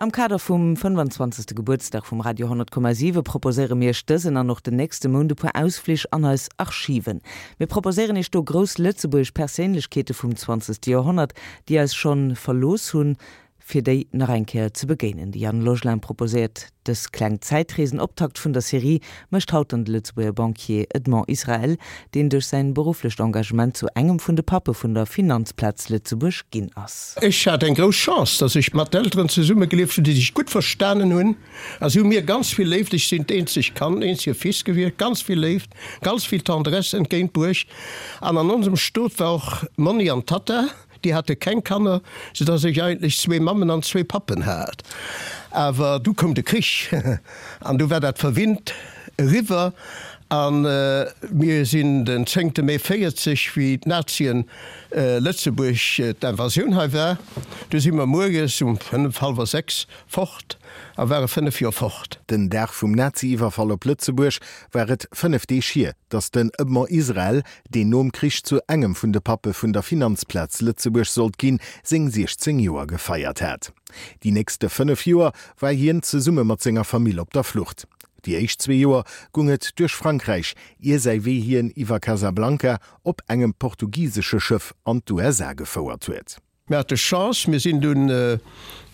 Am Kader vum 25. Gebuertsdag vum Radio 10,7 proposéiere mir Iech dësen an och den nächste Mount e puer Ausflich an eis Archiven. Mir proposéieren Iech do grouss lëtzebuergesch Perséinlechkeete vum 20. Joerhonnert, déi eis schonn verlooss hunn, fir déi nach eng Kéier ze begéinen. De Yann Logelin proposéiert dës kleng Zäitrees. En Optakt vun der Serie mécht haut dann de Lëtzebuerger Banquier Edmond Israel, deen duerch säin berufflecht Engagement zu engem vun de Pappe vun der Finanzplaz Lëtzebuerg ginn ass. Ech hat eng grouss Chance, dass ech mat Elteren zesummegelieft hunn, déi sech gutt verstanen hunn a si hu mir ganz vill Léift, ech sinn d'eenzegt Kand, eenzege Fils gewiescht, ganz vill Léift, ganz vill Tendresse entgéintbruecht. An an onsem Stot war och Monni an Tatta. Déi hate keng Kanner, sou dass ech eigentlech zwee Mammen an zwee Pappen hat. Awer du koum de Krich an du war dat verwinnt eriwwer a mir sinn den zéngte Mee 40, wéi d'Nazien Lëtzebuerg, d'Invasioun hei war, du si mer muerges um fënnef, hallwer 6 fort a ware 5 Joer fort. Den Dag vum Nazi-Iwwerfall op Lëtzebuerg war et 5 Deeg hier, datt den Edmond Israel, deen nom Krich zu engem vun de Pappe vun der Finanzplaz Lëtzebuerg sollt ginn, seng 16 Joer gefeiert hat. Déi nächste 5 Joer war hien zesumme mat senger Famill op der Flucht. Déi éischt zwee Joer gung et duerch Frankräich, ier säi Wee hien iwwer Casablanca op engem portugisesche Schëff an d'USA gefouert huet. Mir hate Chance, mir sinn dunn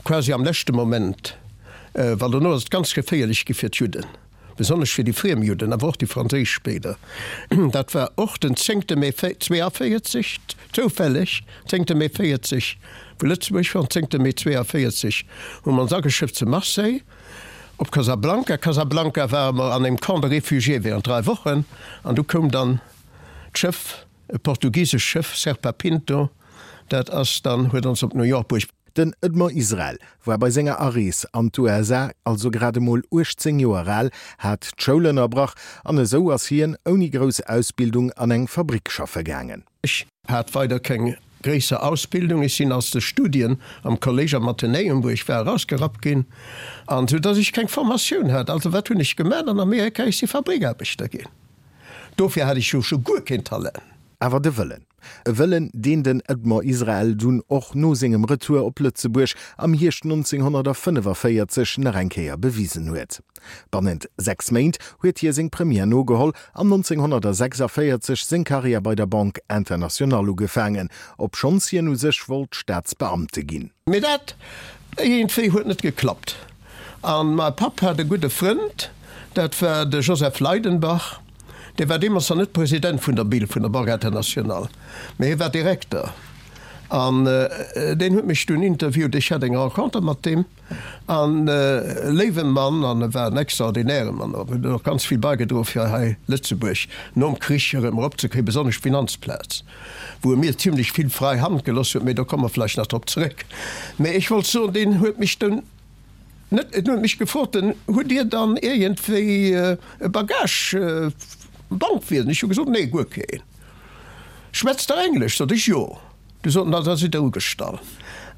quasi am leschte Moment, well dono ass et ganz geféierlech gi fir d'Judden, besonnesch fir déi friem Judden, awer och déi franséisch spéider. Dat war och den zéngte Mee 42, zoufälleg, zéngte Mee 40, wou Lëtzebuerg war, an zéngte Mee 42 hu mer ons ageschëfft zu Marseille op Casablanca. Casablanca ware mer an engem Camp de réfugiés während 3 Wochen an du koum dann d'Schëff, E portugisescht Schëff, Serpa Pinto, dat ass dann, huet ons op New York bruecht. Den Edmond Israel war bei senger Arees an d'USA also grad emol 18 Joer al, hat d'Schoul ënnerbrach an esou ass hien ouni grouss Ausbildung an eng Fabrick schaffe gaangen. Ech hat weider keng gréisser Ausbildung. Ech sinn aus de Studien am Kollége am Athenäum, wou ech war, erausgerappt ginn, an sou dass ech keng Formatioun hat. Also wat hunn ech gemaach an Amerika? Ech si Fabrikaarbechter ginn. Dofir hat ech jo scho guer keen Talent. Awer de Wëllen. E Wëllen, deen den Edmond Israel dunn och no sengem Retour op Lëtzebuerg am Hierscht 1945 nach eng Kéier bewisen huet. Bannent 6 Méint huet hie seng Première nogeholl an 1946 seng Karriär bei der Banque Internationale ugefaangen, obschonns hien u sech wollt Staatsbeamte ginn. Mee dat iergendwéi huet net geklappt. An mai Papp hat e gudde Frënd, dat war de Joseph Leidenbach. Dee war deemools nach net President vun der BIL, vun der Banque Internationale, mee hie war Direkter. An deen huet mech dunn interviewt. Ech hat eng Renconter mat deem. An e léiwe Mann, an e war en extraordinäre Mann och, huet och ganz vill baigedroe fir hei Lëtzebuerg nom Krich erëm eropzekréien, besonnesch d'Finanzplaz, wou e mir zimlech vill frai Hand geloss huet, mee do komme mer vläicht nach drop zeréck. Mee ech wollt soen, deen huet mech dunn net, en huet mech gefrot, den, hutt Dir dann iergendwéi e Bagage Bankwiesen? Ech hu gesot, nee, guer keen. Schwätzt Der Englesch? Sot ech, jo. Du soten, da sidd Der ugestallt.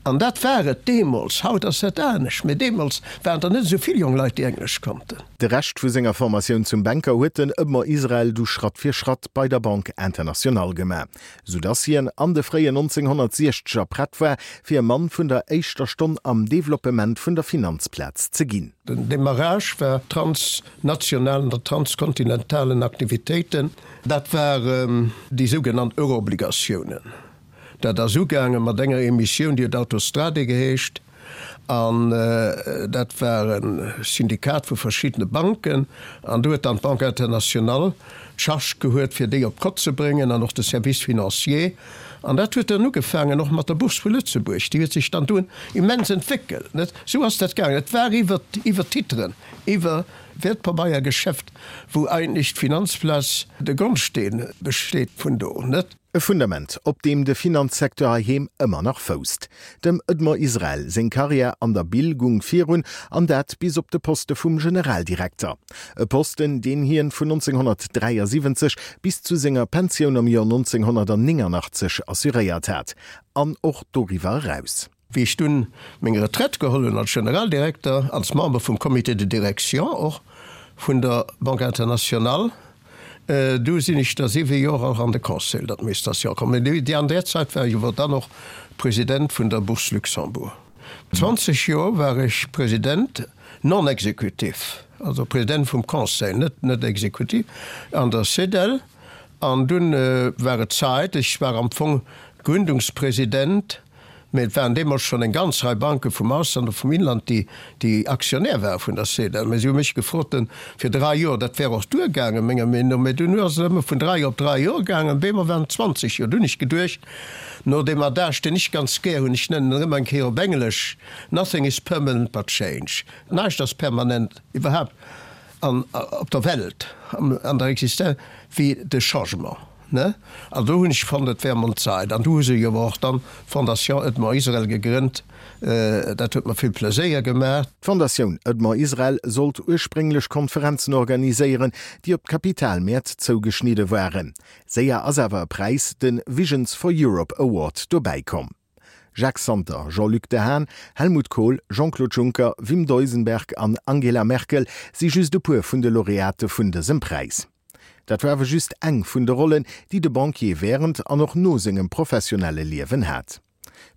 An dat war et deemools. Haut ass dat anescht, mee deemools waren der net esou vill jonk Leit, déi Englesch konnten. De Rescht vu senger Formatioun zum Banker huet den Edmond Israel du Schratt fir Schratt bei der Banque Internationale gemaach, sou dass hien an de fréien 1960er prett war, fir e Mann vun der éischter Stonn am Developpement vun der Finanzplaz ze ginn. Den Demarrage war transnationalen oder transkontinentalen Aktivitéiten. Dat waren déi sougenannt Euroobligatiounen. Dat ass ugaange mat enger Emissioun, déi huet Autostrade geheescht, an dat war e Syndikat vu verschiddene Banken. An do huet dann d'Banque Internationale d'Charge gehuet, fir déi op d'Kott ze bréngen, an och de Service financier. An dat huet dann ugefaangen och mat der Bourse vu Lëtzebuerg, déi huet sech dann dunn immens entwéckelt, net? Esou ass dat gaangen. Et war iwwer, iwwer Titren, iwwer Wäertpabeiergeschäft, wou eigentlech d'Finanzplaz de Grondsteen besteet vun do, net? E Fundament, op deem de Finanzsecteur heiheem ëmmer nach fousst. Dem Edmond Israel seng Karriär an der Bil gung virun, an dat bis op de Poste vum Generaldirekter. E Posten, deen hien vun 1973 bis zu senger Pensioun am Joer 1989 assuréiert hat, an och doriwwer eraus. Wéi ech dunn meng Retraite geholl hunn als Generaldirekter, als Member vum Comité de direction och vun der Banque internationale, du sinn ech da siwe Joer och an de Conseil d'administration komm. An där Zäit war ech awer dann och President vun der Bourse Luxembourg. 20 Joer war ech President non exécutif, also President vum Conseil, net net exécutif, an der CEDEL. An dunn war et Zait, ech war am Fong Gründungspresident, mä et waren deemools schonn eng ganz Rei Banke vum Ausland a vum Inland, déi déi Aktionär ware vun der CEDEL. Mä si hu mech gefrot fir drai Joer, dat wär och duergaangen, menger Meenung no, mä dunn ass et ëmmer vun drai op drai Joer gaangen, op eemol waren et 20 Joer. Dunn hunn ech geduecht, no deem Adage, deen ech ganz gär hunn, ech nennen en ëmmer eng Kéier op Englesch, Nothing is permanent but change, näischt ass permanent, iwwerhaapt an op der Welt, an der Existenz, wéi de Changement. Ne? An do hunn ech fonnt, et wär emol Zait. An du hu se jo awer och dann d'Fondation Edmond Israel gegrënnt. Dat huet mer vill Pleséier gemaach. D'Fondatioun Edmond Israel sollt ursprénglech Konferenzen organiséieren, déi op d'Kapitalmäert zougeschnidde waren. Séier ass awer e Präis, de Visions for Europe Award, dobäi komm. Jacques Santer, Jean-Luc Dehaene, Helmut Kohl, Jean-Claude Juncker, Wim Duisenberg an Angela Merkel si just e puer vun de Laureate vun dësem Präis. Dat war awer just eng vun de Rollen, déi de Banquier wärend an och no sengem professionelle Liewen hat.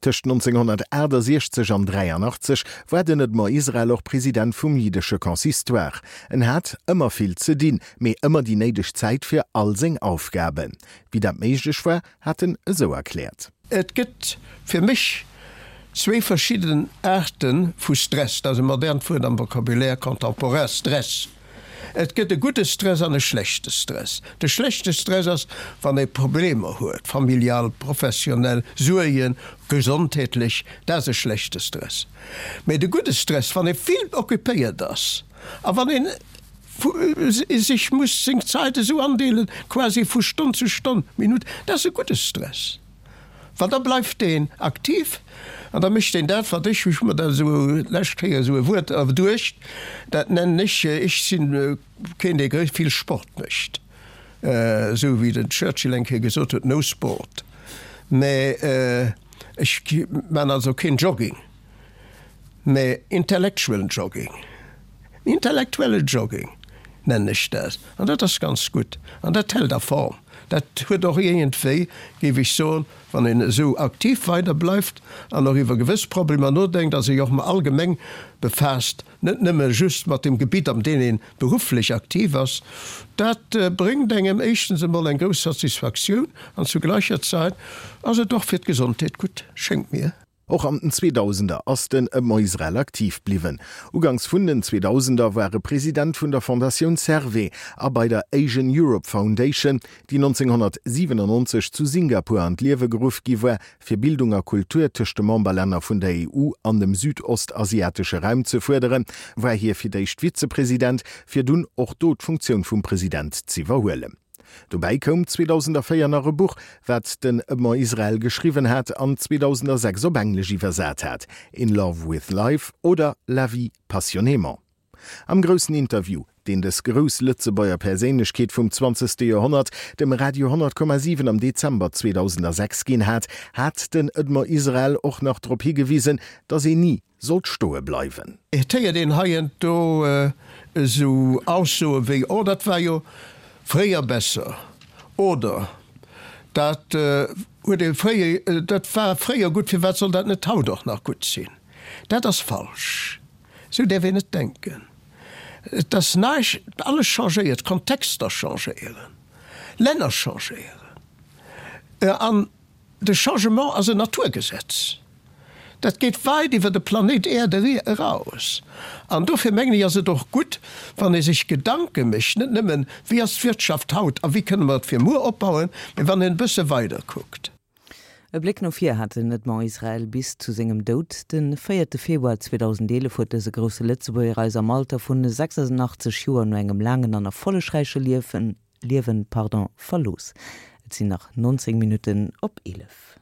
Tëscht 1968 an 83 war den Edmond Israel och President vum jiddesche Consistoire. En hat ëmmer vill ze dinn, mee ëmmer déi néideg Zäit fir all seng Aufgaben. Wéi dat méiglech war, hat en esou erkläert. Et gëtt fir mech zwéi verschidden Aarte vu Stress, dat ass e modernt Wuert am Vocabulaire contemporain, Stress. Et gëtt e gudde Stress an e schlechte Stress. De schlechte Stress ass, wann ee Problemer huet, familial, professionell, Suergen, gesondheetlech, dat ass e schlechte Stress. Mee de gudde Stress, wann ee vill occupéiert ass a wann een sech muss seng Zait esou andeelen, quasi vu Stonn zu Stonn, Minutt, dat ass e gudde Stress. Well da bleift deen aktiv an da mécht deen dat, wat ech, ech hu mer dat esou d'lescht Kéier esou e Wuert erduecht, dat nennen ech, ech si keen, dee vill Sport mécht, esou wéi den Churchill eng Kéier gesot huet, no sport, mä ech man also keen Jogging, mä intellectual jogging. Intellektuelle Jogging nennen ech dat. An dat ass ganz gutt. An dat hält a Form. Dat huet och iergendwéi, géif ech soen, wann een esou aktiv weider bleift an och iwwer gewëss Problemer nodenkt a sech och méi allgemeng befaasst, net nëmme just mat dem Gebitt, am deem ee berufflech aktiv ass, dat bréngt engem éischtens emol eng grouss Satisfaktioun an zu gleicher Zait ass et och fir d'Gesondheet gutt, schéngt mir. Och an den Zweedausender ass den Edmond Israel aktiv bliwwen. Uganks vun den Zweedausender war e President vun der Fondatioun Servais a bei der Asian Europe Foundation, déi 1997 zu Singapur an d'Liewe geruff gi war, fir Bildung a Kultur tëscht de Memberlänner vun der EU an dem südostasiatesche Raum ze fuerderen, war hie fir d'éischt Vizepresident, fir dunn och do d'Funktioun vum President z'iwwerhuelen. Dobäi koum 2004 nach e Buch, wat den Edmond Israel geschriwwen hat an 2006 op Englesch iwwersat hat, In Love with Life oder La vie passionnément. Am groussen Interview, deen dës grouss Lëtzebuerger Perséinlechkeet vum zwanzegste Joerhonnert dem Radio 100,7 am Dezember 2006 ginn hat, hat den Edmond Israel och nach drop higewisen, datt een ni sollt stoe bleiwen. Et héiert een heiansdo esou Aussoe wéi, Oh, dat war jo fréier besser oder Dat huet ee fréier, dat war fréier gutt, firwat soll dat net haut och nach gutt sinn? Dat ass falsch. Esou däerf een net denken. Et ass näischt, alles changéiert, Kontexter changéieren, Länner changéieren an De Changement ass en Naturgesetz. Dat geet weit iwwer de Planéit Äerd eraus. An dofir mengen ech, ass et och gutt, wann ee sech Gedanke mécht, net nëmmen, wéi ass d'Wirtschaft haut a wéi kënne mer et fir muer opbauen, mee wann een e bësse weider kuckt. E Bléck no vir hat den Edmond Israel bis zu sengem Doud. De véierte Februar 2011 huet dëse grousse Lëtzebuerger eis am Alter vun 86 Joer no engem laangen an erfollegräiche Liewen Liewen, pardon, verlooss. Et sinn nach 19 Minutten op 11.